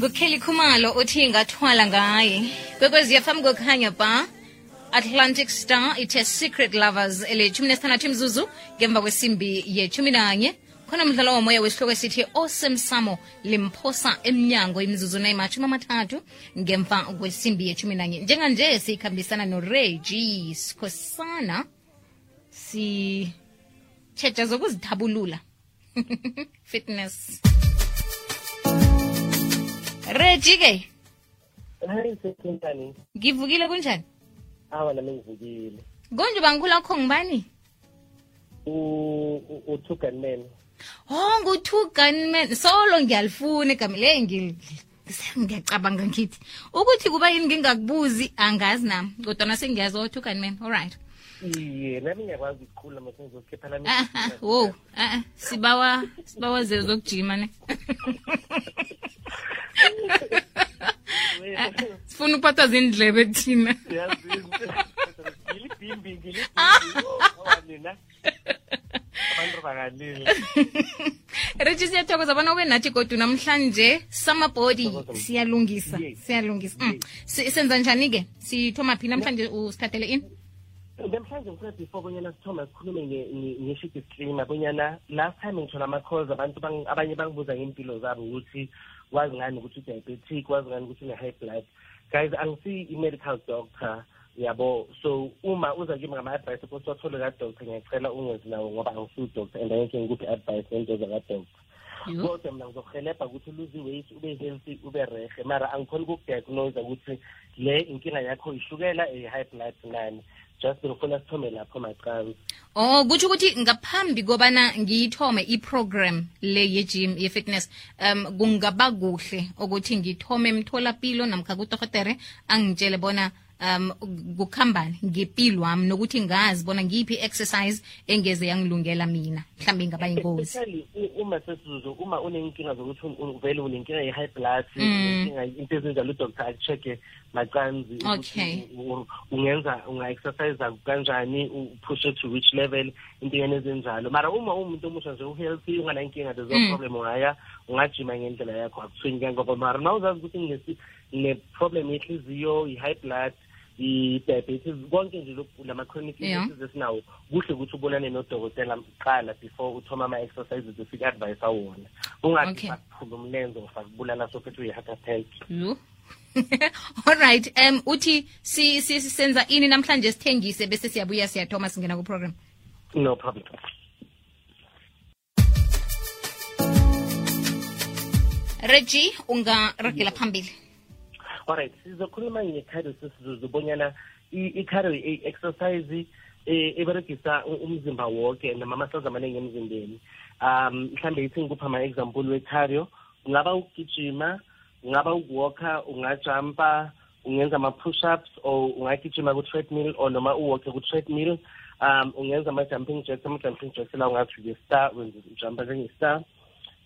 nguKelly Khumalo uthi ngathwala ngaye kwekwezi FM kukhanya ba Atlantic Star ithe Secret Lovers elethumi nesithandathu imzuzu ngemva kwesimbi ye-11 khona umdlalo womoya wesihloko esithi Osemsamo limphosa emnyango imzuzu na-30 ngemva kwesimbi ye-11 njenganje sikhambisana noReggie Skhosana si tshetja zokuzithabulula fitness Reggie ke Hayi sekhentani ngivukile kunjani awa nami ngivukile konje bangikhula kho ngibani u-two gunman ngu-two gunman solo ngiyalifuna igama le ngiyacabanga ngithi ukuthi kuba yini ngingakubuzi angazi nami kodwa sengiyazi o-two gunman alright iye nami ngiyakwazi ukukhula mase ngizokhipha nami wo sibawa zezokujima ne sifuna ukuphatha zindlebe thina ngilibhimbi nina abantu bakalile Reggie siyathokoza bona ube nathi kodwa namhlanje summer body siyalungisa senza njani ke sithoma phi namhlanje usithathele ini namhlanje ngifuna before bonyana sithoma sikhulume nge-shit stream bonyana last time ngithola ama-calls abantu abanye bangibuza ngempilo zabo ukuthi wazi ngani ukuthi u-diabetic wazi ngani ukuthi une-high blood guys angisi i-medical doctor yabo so uma uza kimi ngama-advice ukuthi wathole kadoctor ngiyacela ungezi nawo ngoba angisiwu-doctor and angeke ngikuphi advice ngento zakadoctor kodwa mina ngizokuhelebha ukuthi uluze weight ube healthy ube rehe mara angikhona ukukudiagnose ukuthi le inkinga yakho ishukela high blood nani just ngifuna sithome lapho maqhawe kutsho ukuthi ngaphambi kobana ngiyithome i-program le ye-gym ye-fitness kungaba kuhle ukuthi ngithome emtholapilo namkha kudokotere angitshele bona kukhambani ngempilo wami nokuthi ngazi bona ngiphi exercise engeze yangilungela mina mhlambe ingaba ingozi uma unenkinga zokuthi uvele unenkinga ye-high blood inkinga into ezinjalo udoctor akucheck macanzi unga-exercise kanjani upushe to which level intingene ezinjalo mara uma umuntu omusha nje uhealthy unganankinga there's no problem ungajima ngendlela yakho akuthwini kangoba mara na uzazi ukuthi ngine-problem yenhliziyo i-high blood i-diabetes konke nje lama-chronic illnesses esinawo kuhle ukuthi ubonane nodokotela qala before uthoma ama-exercises esik-advise awona ungathi sakuphula umlenze ufakubulala sophethe uyi-heart attack alright uthi senza ini namhlanje sithengise bese siyabuya siyathoma singena ku-program no problem Reggie ungaragela phambili alright sizokhuluma nge-cardio sizobonyana i-cardio exercise eberegisa umzimba wonke nama-muscles amaningi emzimbeni mhlambe ithi ngikupha ama-example we-cardio ungaba ukugijima ungaba ukuwalka ungajumpa ungenza ama-push-ups or ungagijima ku-treadmill or noma uwalke ku-treadmill ungenza ama-jumping jacks la ungathi nge-star wenza ujumpa njenge-star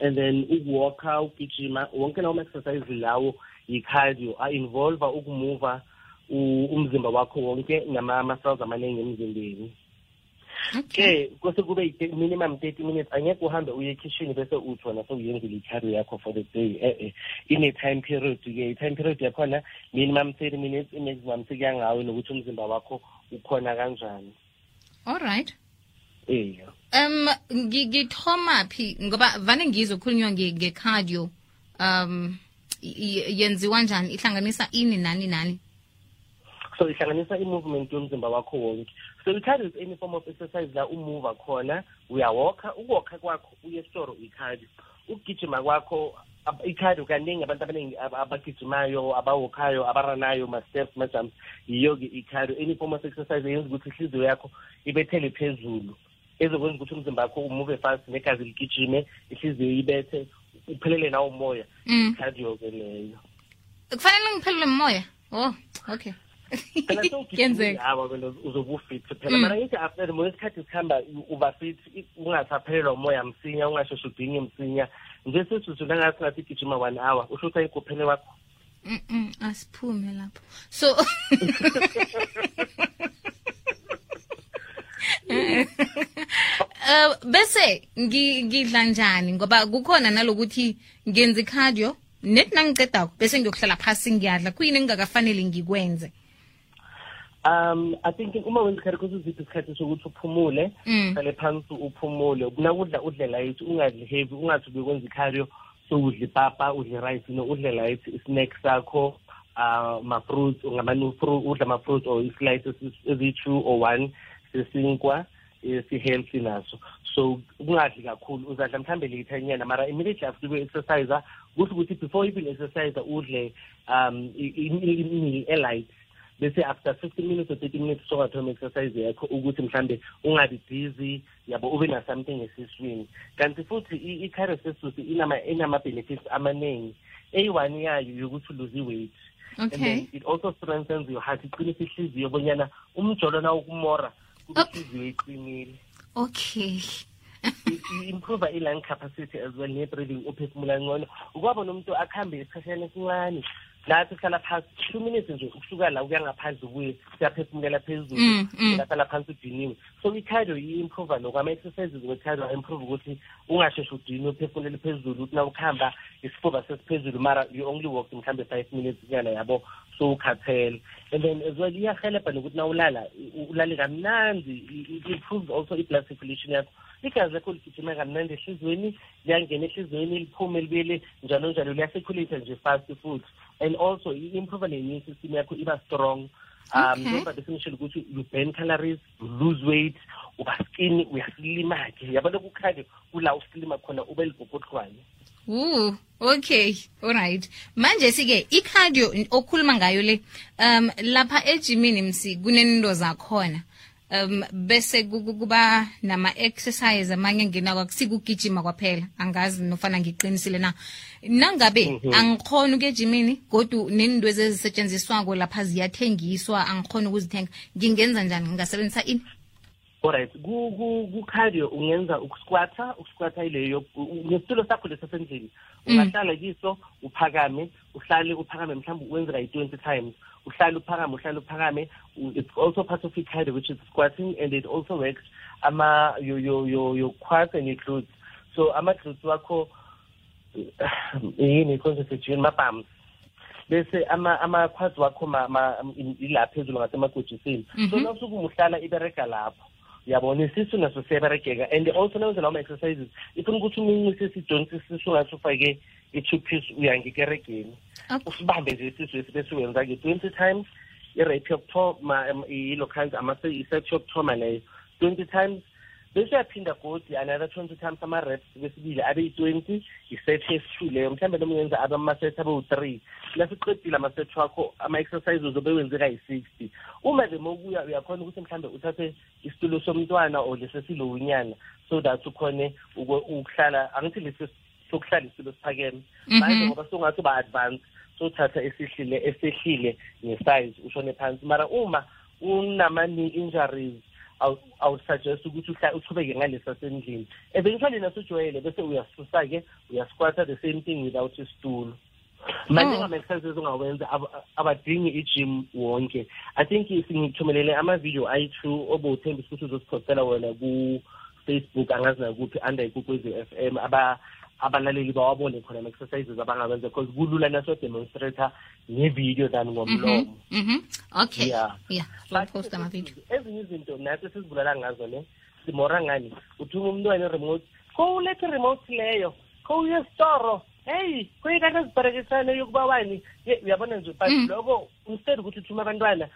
and then ukuwalka ugijima wonke lawo ma-exercise lawo i-cardio a-involve ukumuva umzimba wakho wonke nama-muscles amaningi emzimbeni kose kube minimum 30 minutes angeke uhambe uye ekitchen bese uthi wona sewuyenzile i-cardio yakho for the day ine-time period-ke i-time period yakhona minimum 30 minutes i-maximum sekuyangawe nokuthi umzimba wakho ukhona kanjani alright ngithoma phi ngoba vane ngizokhulunywa nge-cardio yenziwa njani ihlanganisa ini nani so ihlanganisa i-movement yomzimba wakho wonke so i-cardio is any form of exercise la umuva khona uyawalka ukuwalka kwakho uye esitoro i-cardio ukugijima kwakho i-cardio kaningi abantu abaningi abagijimayo abawalkayo abaranayo ma-steps ma-jumps yiyo-ke i-cardio any form of exercise eyenza ukuthi ihliziyo yakho ibethele phezulu ezokwenza ukuthi umzimba wakho umuve fast negazi ligijime ihliziyo ibethe uphelele nawo umoya i-cardio-ke leyo kufanele ngiphelele umoya okay phela uzobe ufit phela mara ngithi after mo isikhathi sikhamba uba fit ungasaphelelwa umoya msinya ungasheshe udinge msinya nje sesizwe langathi ngathi gijima 1 hour usho ukuthi ayikuphele wakho asiphume lapho so bese ngidla njani ngoba kukhona nalokuthi ngenza cardio net nangiqedako bese ngiyokuhlala phasi ngiyadla kuyini engingakafanele ngikwenze? I think uma wenza ikhari kuziziphi isikhathi sokuthi uphumule, uhlale phansi uphumule, kunakudla udle light, ungadli heavy, ungathi bekwenza ikhari so udle ipapa, udle rice, no udle light, snacks sakho, ma-fruits, udla ma-fruits or slices ezi-2 or 1 sesinkwa si-healthy naso. So ungadli kakhulu, uzadla mhlambe lethanyana, mara immediately after you-exercise, kusho ukuthi before even exercise udle i-meal e-light. Bese after 15 minutes or 30 minutes sokathoma exercise yakho ukuthi mhlambe ungabi busy yabo ube na something esiswini. Kanti futhi i-cardio sesusi inama benefits amaningi. A1 yayo yokuthi lose weight. Okay. And then it also strengthens your heart. Iqinisa ihliziyo bonyana umjolo na ukumora kube ihliziyo iqinile. Okay. Improve i-lung capacity as well, ne-breathing uphefumula ngcono. Ukwabona umuntu akhambe esikhashana esincane lathi uhlala phasi 2 minutes nje ukusuka la ukuya ngaphandle ubuye siyaphefumulela phezulu uhlala phansi udiniwe. So i-cardio i-improve ama-exercises we-cardio improve ukuthi ungasheshi udinwe uphefumulele phezulu ukuthi na ukuhamba isifuba sesiphezulu mara you only walk mhlambe 5 minutes nyana yabo so ukhathele. And then as well iyahelebha nokuthi na ulale kamnandi. It improves also i-blood circulation yakho. Igazi lakho ligijima kamnandi ehliziyweni, liyangena ehliziyweni liphume libuyele njalo njalo, liyacirculate nje fast futhi. And also improve ne-immune system yakho iba strong. Njengoba besinishilo ukuthi you burn calories, you lose weight, uba skinny, uyaslima-ke. Yabo lokhu khadi kula uslima khona ube libhobhodlwane. Okay, alright. Manje sike i-cardio okhuluma ngayo le lapha ejimini msi kunento zakhona. Bese kuba nama exercise amanye ngena kwakusikugijima kwaphela, angazi nofana ngiqinisile na. Nangabe angikhona ukejimini kodwa nendo ezisetshenziswako lapha ziyathengiswa, angikhona ukuzithenga, ngingenza njani? Ngingasebenzisa ini? Alright, ku cardio ungenza ukusquatta ileyo ngesitulo sakho lesasendlini. Ungahlala kiso uphakame, uphakame mhlawumbe wenza like 20 times. Uhlala uphakame. It's also part of cardio, which is squatting, and it also works your quads and your glutes. So ama-glutes wakho yini concentrate ma-palms. Bese ama-quads wakho ila phezulu ngasemagojisini. So nawusuke uhlala ibereka lapho. Yabona isisu naso siyaberekeka. And also nawenza lawo ma-exercises ifuna ukuthi umunye isijonsi isisu ngathi ufake i-2-piece uyangikeregeni. Usibambe nje isisu esibese wenza-ke 20 times. I-rate yokuthoma i-local i-set yokuthoma leyo 20 times. Bese uyaphinda godi another 20 times ama-reps besibili abe yi-20, i-set yesi-2 leyo mhlawumbe noma uyenza ama-set abe u-3. Lasiqedile ama-set wakho ama-exercises uzobe wenzeka yi-60. Uma nje mokuya uyakhona ukuthi mhlawumbe uthathe isitulo somntwana or lesesilowinyana so that ukhone ukuhlala, angithi lesi sokuhlala isitulo siphakeme. Manje ngoba songathi ba-advance sothatha esehlile nge-size ushone phansi. Mara uma unama-knee injuries I would suggest ukuthi uchubeke ngalesa sendlini. Eventually nasujwayele bese uyasusa-ke uyasquatta the same thing without isitulo. Manje ngama-exercises ongawenza abadingi i-gym wonke. I think singithumelele ama-video ayi-2 obowuthembisa ukuthi uzosiphostela wena ku-Facebook angazi nakuphi under Ikwekwezi FM abalaleli bawabone khona ama-exercises abangawenza because kulula naso-demonstrator ngevideo than ngomlomo. Okay. Yeah. Post ama-video. Ezinye izinto nathi sizibulala ngazo ne simora ngani uthuma umntwana i-remote ulethe i-remote leyo uye esitoro hey kuyikade zibharekisane yokuba wani uyabona nje but lokho instead ukuthi uthuma abantwana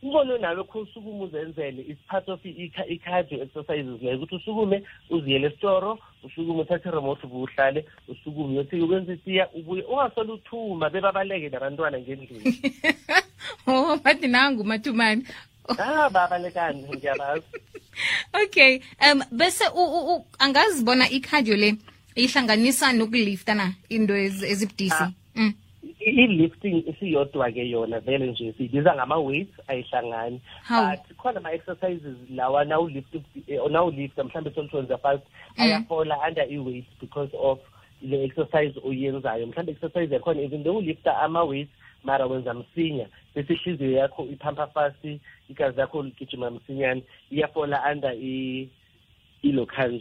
ubone nawe kho usukume uzenzele is part of i-cardio exercises leyo ukuthi usukume uziyele esitoro usukume uthathe i-remote ubuhlale usukume uyothi ukwenza itiya ubuye ungasole uthuma bebabaleke nabantwana ngendlini. Bathi nangu mathumani. Babalekani ngiyabazi. Okay, bese angazibona i-cardio le ihlanganisa nokulifta na into ezibudisi. I-lifting isiyodwa-ke yona vele nje siyibiza ngama-weights ayihlangani. But khona ama-exercises lawa nawulifta mhlawumbe solitwenza fast ayafola under i-weight because of le exercise oyenzayo. Mhlawumbe exercise yakhona even though ulifta ama-weights mara wenza msinya bese ihliziyo yakho iphampa fast, igazi lakho ligijima msinyane, iyafola under i-local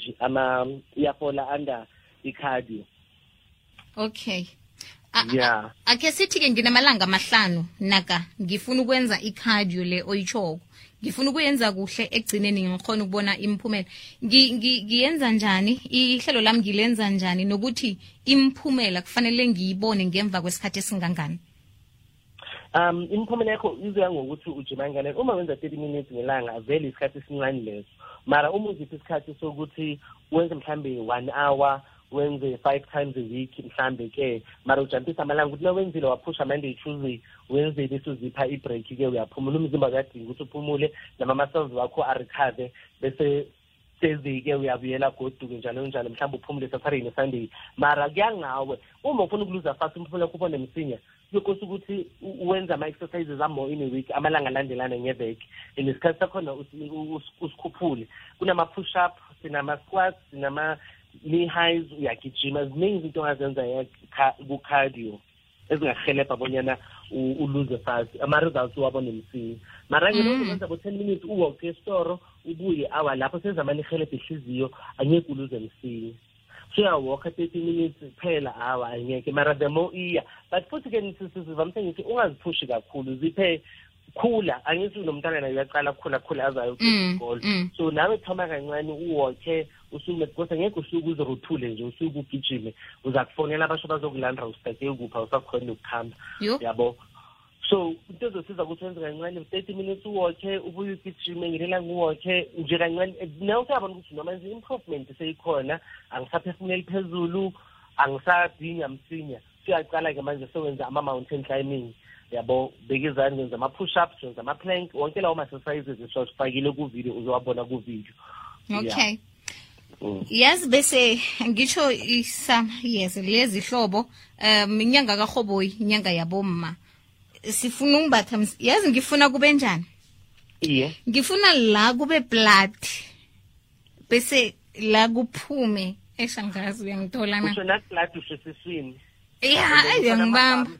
iyafola under i-cardio. Okay. Yeah. Ake sithi-ke nginamalanga amahlanu naka ngifuna ukwenza i-cardio le oyichoko. Ngifuna ukuyenza kuhle egcineni ngikhona ukubona imphumela. Ngiyenza njani? Ihlelo lami ngilenza njani nokuthi imphumela kufanele ngiyibone ngemva kwesikhathi esingangani? Imphumela yakho izoya ngokuthi ujima kangakanani. Uma wenza 30 minutes ngelanga vele isikhathi esincane leso. Mara uma uziphi isikhathi sokuthi wenze mhlambe 1 hour, wenze 5 times a week mhlambe ke, mara ujampisa amalanga ukuthi nawenzile waphusha Monday Tuesday, Wednesday bese uzipha i-break ke uyaphumula, umzimba uyadinga ukuthi uphumule nama-muscles wakho arecover, bese Thursday ke uyabuyela goduke njalo njalo mhlawumbe uphumule Saturday neSunday. Mara kuyangawe uma ufuna ukuluza fast umphumela kupho nemsinya yokuthi ukuthi uwenza ama-exercises more in a week, amalanga alandelana ngeveki, nesikhathi sakhona usikhuphule. Kunama-push-up, sinama-squats, sinama-knee highs, uyagijima, ziningi izinto ongazenza ku-cardio ezingahelebha bonyana uluze fast, ama-results uwabone msinya. Mara ngenza bo-10 minutes uwalk esitoro ubuye hour lapho sezamane ihelebha ihliziyo angeke uluze msinya. So uyawalka 30 minutes phela hour angeke, mara the more iya. But futhi ke sivamisa ngithi ungaziphushi kakhulu, ziphe khula, angithi nomntana naye uyaqala khula azayo isikole. So nawe thoma kancane uwalke usukume because ngeke usuku uzoruthule nje usuku ugijime, uza kufonela abasho bazokulanda usitake ukupha usakhona ukukhamba, yabo. So into ezosiza ukuthi wenze kancane 30 minutes uwalke ubuye ugijime ngelela nguwalke nje kancane, nawe uyabona ukuthi noma nje improvement seyikhona, angisaphefumuleli phezulu, angisadinga msinya. Siyaqala ke manje sowenza ama-mountain climbing, yabo, bekizani ngenza ama-push-ups, ngenza ama-plank, wonke lawo ma-exercises esifakile ku-video uzowabona ku-video. Okay. Yazi bese ngisho yes lezi hlobo inyanga kaRhoboyi, inyanga yabomma. Sifuna ungibatha yazi ngifuna kube njani? Iye. Ngifuna la kube blood. Bese la kuphume eshangazi uyangithola na. Usho na blood usesiswini. Uyangibamba.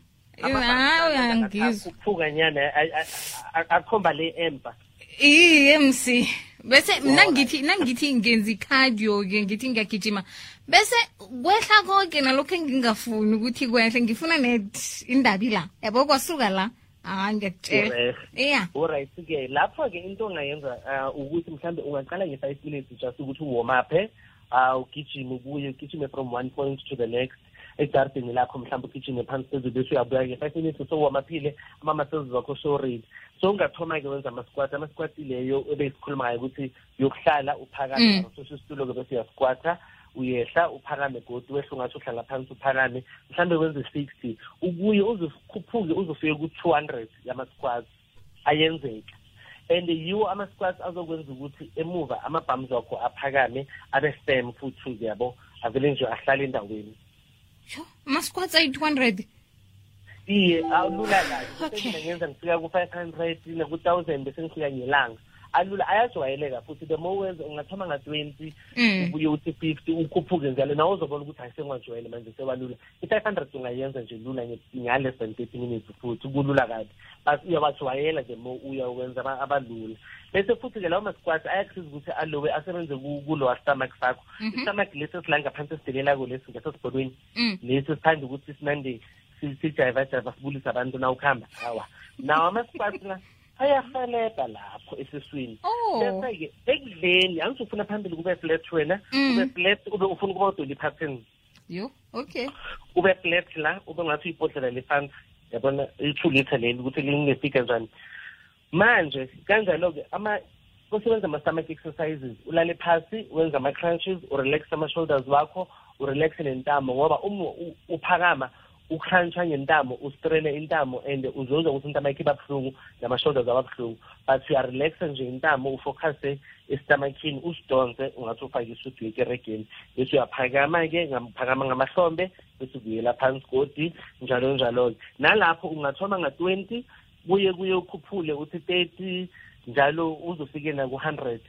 Uyangizwa. Kuphuka nyana akhomba le empa. MC. Bese nangithi ngenza cardio ke ngithi ngiyagijima. Bese kwehla konke nalokho engingafuni ukuthi kwehle, ngifuna net indabi la. Yabo kwasuka la. Ngiyakutshela. Yeah. Alright ke lapho ke into ongayenza ukuthi mhlambe ungaqala nge5 minutes just ukuthi warm up, ugijime ubuye ugijime from one point to the next. Egarden lakho mhlawumbe ugijime phansi phezulu bese uyabuya ke 5 minutes so wamaphile ama-muscles wakho so ready. So ungathoma ke wenza ama-squat leyo ebesikhuluma ngayo ukuthi yokuhlala uphakame so isitulo ke bese uyasquata uyehla uphakame godwa wehle ungathi uhlala phansi uphakame mhlawumbe wenze 60 ubuye uzokhuphuke uzofike ku200 yama-squats ayenzeka. And yiwo ama-squats azokwenza ukuthi emuva ama-bums wakho aphakame abe firm futhi yabo avele nje ahlale endaweni. Ama-squats ayi-200. Iye, awulula kahle. Ngenza ngifika ku-500 naku-1000 bese ngifika ngelanga. Alula ayajwayeleka futhi the more wenza ungathoma nga-20 ubuye uthi 50 ukhuphuke njalo nawe uzobona ukuthi ayisengwajwayele manje sebalula. I-500 ungayenza nje lula nge-less than 30 minutes futhi kulula kabi. But uyabajwayela the more uyawenza abalula. Bese futhi ke lawo ma-squats ayakusiza ukuthi alowe asebenze kulowa stomach sakho. Istomach lesi esilanga ngaphansi esidelela ko lesi ngasesibhodweni. Lesi sithanda ukuthi sinande sijayiva sibulisa abantu na ukuhamba. Hawa. Nawo ama-squats la ayahelebha lapho esiswini. Bese-ke ekudleni angithi ufuna phambili kube flat wena, kube flat ube ufuna ukuba udoli pattern. Okay. Ube flat la ube ngathi uyibhodlela lefansi. Yabona i2 liter leli ukuthi lingefika njani. Manje kanjalo-ke kusebenza ama-stomach exercises, ulale phasi wenza ama-crunches, urelax ama-shoulders wakho, urelaxe nentamo ngoba uphakama ukhrantsha ngentamo ustrene intamo and uzozwa ukuthi intamo yakho ibabuhlungu nama-shoulders ababuhlungu, but uyarelaxa nje intamo ufocuse esitomakhini usidonse ungathi ufake isudu yekeregeni bese uyaphakama-ke phakama ngamahlombe bese ukuyela phansi godi njalo njalo-ke. Nalapho ungathoma nga-20 kuye ukhuphule uthi 30 njalo uzofike naku-100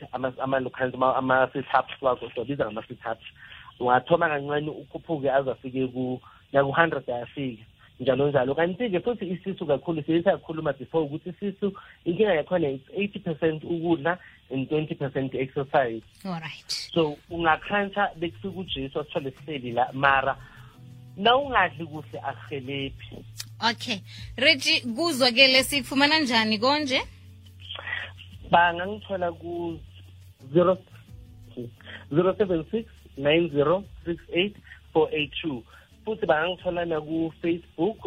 ama-sit-ups wakho siwabiza ngama-sit-ups. Ungathoma kancane ukhuphuke azafike naku-100 ayafika njalo njalo. Kanti-ke futhi isisu kakhulu siyakhuluma before ukuthi isisu inkinga yakhona is 80% ukudla and 20% exercise. Alright. So ungakhantsha bekufika uJesu asithole sihleli la mara nawungadli kuhle akuhelebhi. Okay, Reggie, kuzwa ke lesikufumana njani konje? Bangangithola ku 076 9068 482. Futhi bangangithola na ku Facebook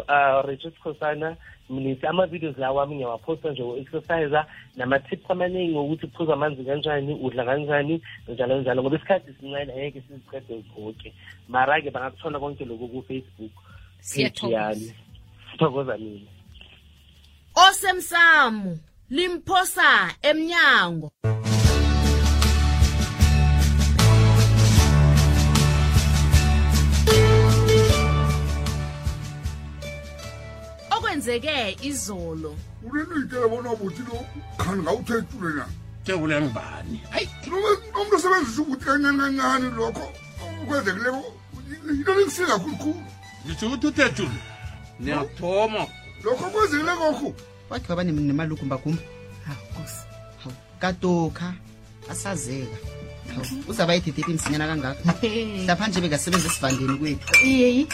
Regis Khosana Mnisi. Ama-videos lawa ami ngiyawaposta nje o-exercise nama-tips amaningi ukuthi uphuza amanzi kanjani, udla kanjani, njalo njalo, ngoba isikhathi sincane angeke siziqede zonke. Mara-ke bangakuthola konke lokhu ku-Facebook. Sithokoza mina. Osemsamo limphosa emnyango. Okwenzeke izolo. Ulenitshela bona ubuthi lo khani ngawuthethule na. Tebule ngibani? Hayi, umuntu osebenzisa ukuthi kancane lokho ukwenzekileko into lekusika kakhulu. Ngisho ukuthi uthethule. Niyathoma. Lokho kwenzekile kokho. Wakhe baba nemalukumba kumba. Nkosi. Hawu, katoka asazeka. Hawu, uzaba yithithiphi imsinyana kangaka. Lapha nje bekasebenza esivandeni kwethu. Iyeyi.